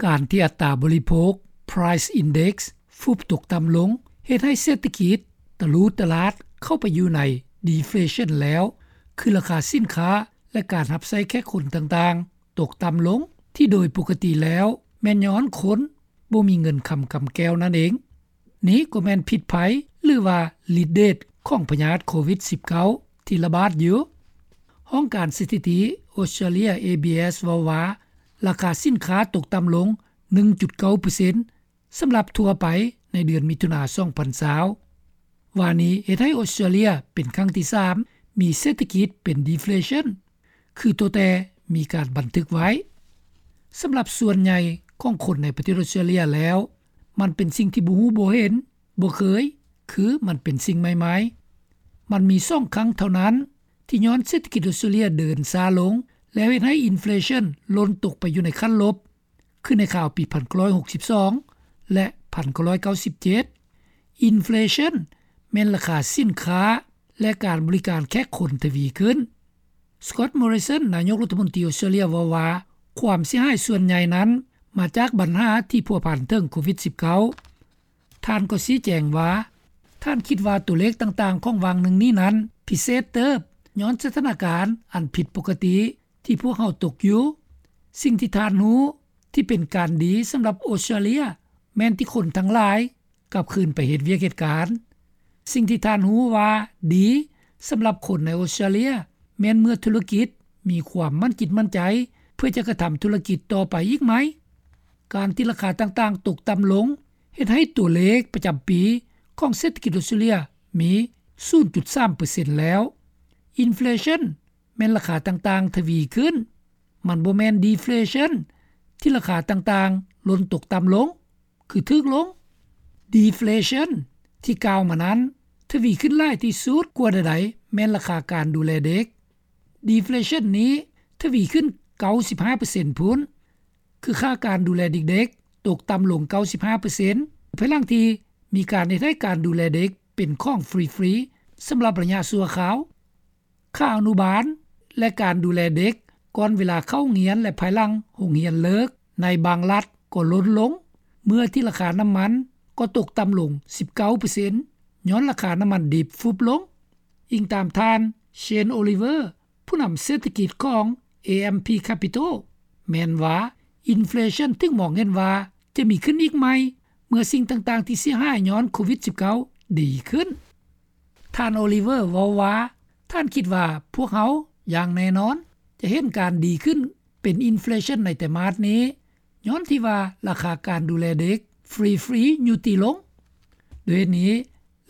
ການທີ່ອັດຕາບໍລິໂພກ Price Index ຟຸບຕົກຕ່ຳລົງ ເຮັດໃຫ້ເສດຖະກິດຕະຫຼູຕະຫຼາດເຂົ້າໄປຢູ່ໃນ Deflation ແລ້ວ ຄືລາຄາສິນຄ້າ ແລະ ການຮັບໃຊ້ແຂກຄົນຕ່າງໆ ຕົກຕ່ຳລົງ ທີ່ໂດຍປົກກະຕິແລ້ວ ແມ່ນຍ້ອນຄົນບໍ່ມີເງິນຄຳກຳແກ້ວນັ້ນເອງ. ນີ້ກໍແມ່ນພິດໄພ ຫຼືວ່າລິດເດດຂອງພະຍາດໂຄວິດ-19 ທີ່ລະບາດຢູ່. ຫ້ອງການສະຖິຕິອົດສະຕຣາເລຍ ABS ເວົ້າວ່າ ລາຄາສິນຄ້າຕົກຕ່ຳລົງ ໜຶ່ງຈຸດເກົ້າເປີເຊັນ ສຳລັບທົ່ວໄປໃນເດືອນມິຖຸນາ ສອງພັນຊາວ ວ່ານີ້ເຮັດໃຫ້ອົດສະຕຣາເລຍເປັນຄັ້ງທີສາມ ມີເສດຖະກິດເປັນ Deflation ຄືຕົວແຕ່ມີການບັນທຶກໄວ້. ສຳລັບສ່ວນໃຫຍ່ຂອງຄົນໃນປະເທດອົດສະຕຣາເລຍແລ້ວ ມັນເປັນສິ່ງທີ່ບໍ່ຮູ້ບໍ່ເຫັນ ບໍ່ເຄີຍ ຄືມັນເປັນສິ່ງໃໝ່ໆ. ມັນມີສອງຄັ້ງເທົ່ານັ້ນ ທີ່ຍ້ອນເສດຖະກິດອົດສະຕຣາເລຍເດີນຊ້າລົງ ແລ້ວເຮັດໃຫ້ Inflation ຫຼົ່ນຕົກໄປຢູ່ໃນຂັ້ນລົບ ຄືໃນຄາວປີພັນເກົ້າຮ້ອຍຫົກສິບສອງ ແລະ ພັນເກົ້າຮ້ອຍເກົ້າສິບເຈັດ. Inflation ແມ່ນລາຄາສິນຄ້າ ແລະ ການບໍລິການແຂກຄົນທະວີຂຶ້ນ. Scott Morrison ນາຍົກລັດຖະມົນຕີອົດສະຕຣາເລຍເວົ້າວ່າ ຄວາມເສຍຫາຍສ່ວນໃຫຍ່ນັ້ນມາຈາກບັນຫາທີ່ພົວພັນເຖິງໂຄວິດ-19. ທ່ານກໍຊີ້ແຈງວ່າ ທ່ານຄິດວ່າຕົວເລກຕ່າງໆຂອງຫວ່າງໜຶ່ງນີ້ນັ້ນພິເສດເຕີບ ຍ້ອນສະຖານະການອັນຜິດປົກກະຕິທີ່ພວກເຮົາຕົກຢູ່. ສິ່ງທີ່ທ່ານຮູ້ທີ່ເປັນການດີສຳລັບອົດສະຕຣາເລຍ ແມ່ນທີ່ຄົນທັງຫຼາຍກັບຄືນໄປເຮັດວຽກເຮັດການ. ສິ່ງທີ່ທ່ານຮູ້ວ່າດີສຳລັບຄົນໃນອົດສະຕຣາເລຍ ແມ່ນເມື່ອທຸລະກິດມີຄວາມໝັ້ນຈິດໝັ້ນໃຈ ເພື່ອຈະກະທຳທຸລະກິດຕໍ່ໄປອີກໃໝ່. ການທີ່ລາຄາຕ່າງໆຕົກຕ່ຳລົງ ເຮັດໃຫ້ຕົວເລກປະຈຳປີຂອງເສດຖະກິດອົດສະຕຣາເລຍມີສູນຈຸດສາມເປີເຊັນແລ້ວ. Inflation ແມ່ນລາຄາຕ່າງໆທະວີຂຶ້ນ, ມັນບໍ່ແມ່ນ Deflation ທີ່ລາຄາຕ່າງໆຫຼົ່ນຕົກຕ່ຳລົງ ຄືຖືກລົງ. Deflation ທີ່ກ່າວມານັ້ນ ທະວີຂຶ້ນຫຼາຍທີ່ສຸດກວ່າໃດໆ ແມ່ນລາຄາການດູແລເດັກ. Deflation ນີ້ທະວີຂຶ້ນເກົ້າສິບຫ້າເປີເຊັນພຸ້ນ ຄືຄ່າການດູແລເດັກໆຕົກຕ່ຳລົງເກົ້າສິບຫ້າເປີເຊັນ ພາຍຫຼັງທີ່ມີການເຮັດໃຫ້ການດູແລເດັກເປັນຂອງຟຣີໆສຳລັບໄລຍະຊົ່ວຄາວ. ຄ່າອະນຸບານ ແລະ ການດູແລເດັກກ່ອນເວລາເຂົ້າໂຮງຮຽນ ແລະ ພາຍຫຼັງໂຮງຮຽນເລີກໃນບາງລັດກໍຫຼຸດລົງ ເມື່ອທີ່ລາຄານ້ຳມັນກໍຕົກຕ່ຳລົງສິບເກົ້າເປີເຊັນ ຍ້ອນລາຄານ້ຳມັນດິບຟຸບລົງ. ອີງຕາມທ່ານ Shane Oliver ຜູ້ນຳເສດຖະກິດຂອງ AMP Capital ແມ່ນວ່າ Inflation ຖືກມອງເຫັນວ່າຈະມີຂຶ້ນອີກໃໝ່ ເມື່ອສິ່ງຕ່າງໆທີ່ເສຍຫາຍຍ້ອນໂຄວິດ-19 ດີຂຶ້ນ. ທ່ານ Oliver ເວົ້າວ່າ ທ່ານຄິດວ່າພວກເຮົາຢ່າງແນ່ນອນຈະເຫັນການດີຂຶ້ນເປັນ Inflation ໃນໄຕມາດນີ້ ຍ້ອນທີ່ວ່າລາຄາການດູແລເດັກຟຣີໆຍຸຕິລົງ. ດ້ວຍເຫດນີ້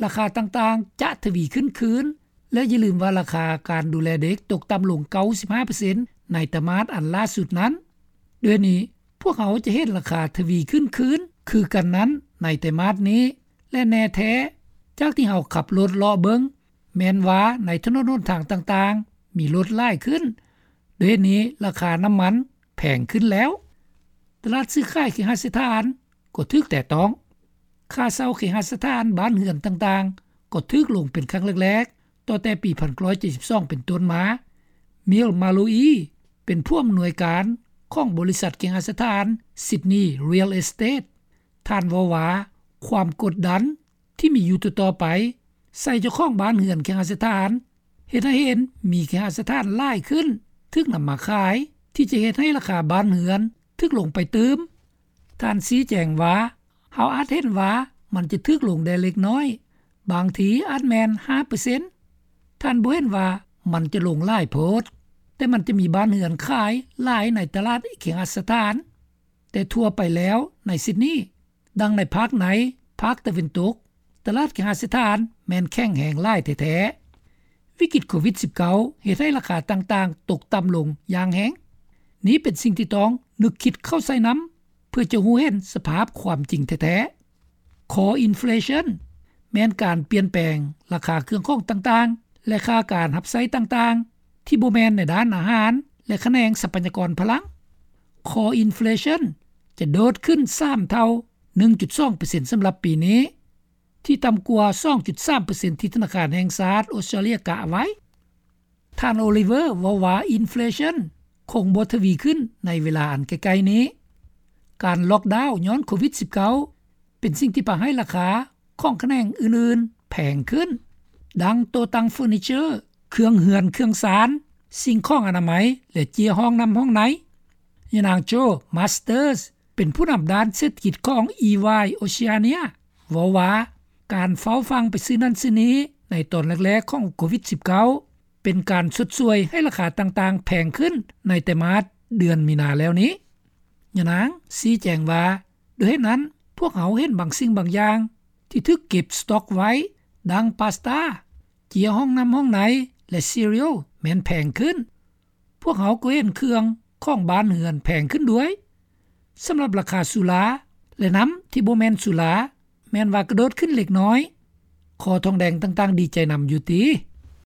ລາຄາຕ່າງໆຈະທະວີຂຶ້ນຄືນ ແລະ ຢ່າລືມວ່າລາຄາການດູແລເດັກຕົກຕ່ຳລົງເກົ້າສິບຫ້າເປີເຊັນໃນໄຕມາດອັນລ່າສຸດນັ້ນ. ດ້ວຍເຫດນີ້ ພວກເຮົາຈະເຫັນລາຄາທະວີຂຶ້ນຄືນຄືກັນນັ້ນໃນໄຕມາດນີ້ ແລະ ແນ່ແທ້ຈາກທີ່ເຮົາຂັບລົດເລາະເບິ່ງ ແມ່ນວ່າໃນຖະໜົນຫົນທາງຕ່າງໆມີລົດຫຼາຍຂຶ້ນ. ດ້ວຍເຫດນີ້ລາຄານ້ຳມັນແພງຂຶ້ນແລ້ວ. ຕະຫຼາດຊື້ຂາຍເຄຫະສະຖານກໍຖືກແຕະຕ້ອງ. ຄ່າເຊົ່າເຄຫະສະຖານບ້ານເຮືອນຕ່າງໆກໍຖືກລົງເປັນຄັ້ງແລກໆ ຕໍ່ແຕ່ປີໜຶ່ງພັນເກົ້າຮ້ອຍເຈັດສິບສອງເປັນຕົ້ນມາ. Mill Malloy ເປັນຜູ້ອຳນວຍການຂອງບໍລິສັດເຄຫະສະຖານ Sydney Real Estate. ທ່ານເວົ້າວ່າ ຄວາມກົດດັນທີ່ມີຢູ່ຕໍ່ໆໄປໃສ່ເຈົ້າຂອງບ້ານເຮືອນເຄຫະສະຖານ ເຮັດໃຫ້ເຫັນມີເຄຫະສະຖານຫຼາຍຂຶ້ນຖືກນຳມາຂາຍ ທີ່ຈະເຮັດໃຫ້ລາຄາບ້ານເຮືອນຖືກລົງໄປຕື່ມ. ທ່ານຊີ້ແຈງວ່າ ເຮົາອາດເຫັນວ່າມັນຈະຖືກລົງໄດ້ເລັກນ້ອຍ, ບາງທີອາດແມ່ນຫ້າເປີເຊັນ. ທ່ານບໍ່ເຫັນວ່າມັນຈະລົງຫຼາຍໂພດ, ແຕ່ມັນຈະມີບ້ານເຮືອນຂາຍຫຼາຍໃນຕະຫຼາດເຄຫະສະຖານ. ແຕ່ທົ່ວໄປແລ້ວໃນຊິດນີ, ດັ່ງໃນພາກໃນ, ພາກຕາເວັນຕົກ, ຕະຫຼາດເຄຫະສະຖານແມ່ນແຂງແຮງຫຼາຍແທ້ໆ. ວິກິດໂຄວິດ-19 ເຮັດໃຫ້ລາຄາຕ່າງໆຕົກຕ່ຳລົງຢ່າງແຮງ. ນີ້ເປັນສິ່ງທີ່ຕ້ອງນຶກຄິດເຂົ້າໃສ່ນຳ ເພື່ອຈະຮູ້ເຫັນສະພາບຄວາມຈິງແທ້ໆ. Core Inflation ແມ່ນການປ່ຽນແປງລາຄາເຄື່ອງຂອງຕ່າງໆ ແລະ ຄ່າການຮັບໃຊ້ຕ່າງໆ ທີ່ບໍ່ແມ່ນໃນດ້ານອາຫານ ແລະ ຂະແໜງຊັບພະຍາກອນພະລັງ. Core Inflation ຈະໂດດຂຶ້ນສາມເທົ່າ, ໜຶ່ງຈຸດສອງເປີເຊັນ ສຳລັບປີນີ້, ທີ່ຕ່ຳກວ່າ ສອງຈຸດສາມເປີເຊັນ ທີ່ທະນາຄານແຫ່ງຊາດອົດສະຕຣາເລຍກະໄວ້. ທ່ານ Oliver ເວົ້າວ່າ Inflation ຄົງບໍ່ທະວີຂຶ້ນໃນເວລາອັນໃກ້ໆນີ້. ການລ໊ອກດາວຍ້ອນໂຄວິດ-19 ເປັນສິ່ງທີ່ພາໃຫ້ລາຄາຂອງຂະແໜງອື່ນໆແພງຂຶ້ນ ດັ່ງໂຕະຕັ່ງເຟີນີເຈີ, ເຄື່ອງເຮືອນເຄື່ອງຊານ, ສິ່ງຂອງອະນາໄມ ແລະເຈ້ຍຫ້ອງນໍ້າຫ້ອງໃນ. ຍານາງ Joe Masters ເປັນຜູ້ນຳດ້ານເສດຖະກິດຂອງ EY Oceania ເວົ້າວ່າ ການເຝົ້າຟັ່ງໄປຊື້ນັ້ນຊື້ນີ້ໃນຕອນແລກໆຂອງໂຄວິດ-19 ເປັນການຊົດຊ່ວຍໃຫ້ລາຄາຕ່າງໆແພງຂຶ້ນໃນໄຕມາດເດືອນມີນາແລ້ວນີ້. ຍານາງຊີ້ແຈງວ່າ ດ້ວຍເຫດນັ້ນ ພວກເຮົາເຫັນບາງສິ່ງບາງຢ່າງທີ່ຖືກເກັບສະຕັອກໄວ້ ດັ່ງປາສຕາ, ເຈ້ຍຫ້ອງນໍ້າຫ້ອງໃນ ແລະ cereal ແມ່ນແພງຂຶ້ນ. ພວກເຮົາກໍເຫັນເຄື່ອງຂອງບ້ານເຮືອນແພງຂຶ້ນດ້ວຍ. ສຳລັບລາຄາສຸລາ ແລະ ນໍ້າທີ່ບໍ່ແມ່ນສຸລາ ແມ່ນວ່າກະໂດດຂຶ້ນເລັກນ້ອຍ. ຄໍທອງແດງຕ່າງໆດີໃຈນຳຢູ່ຕິ.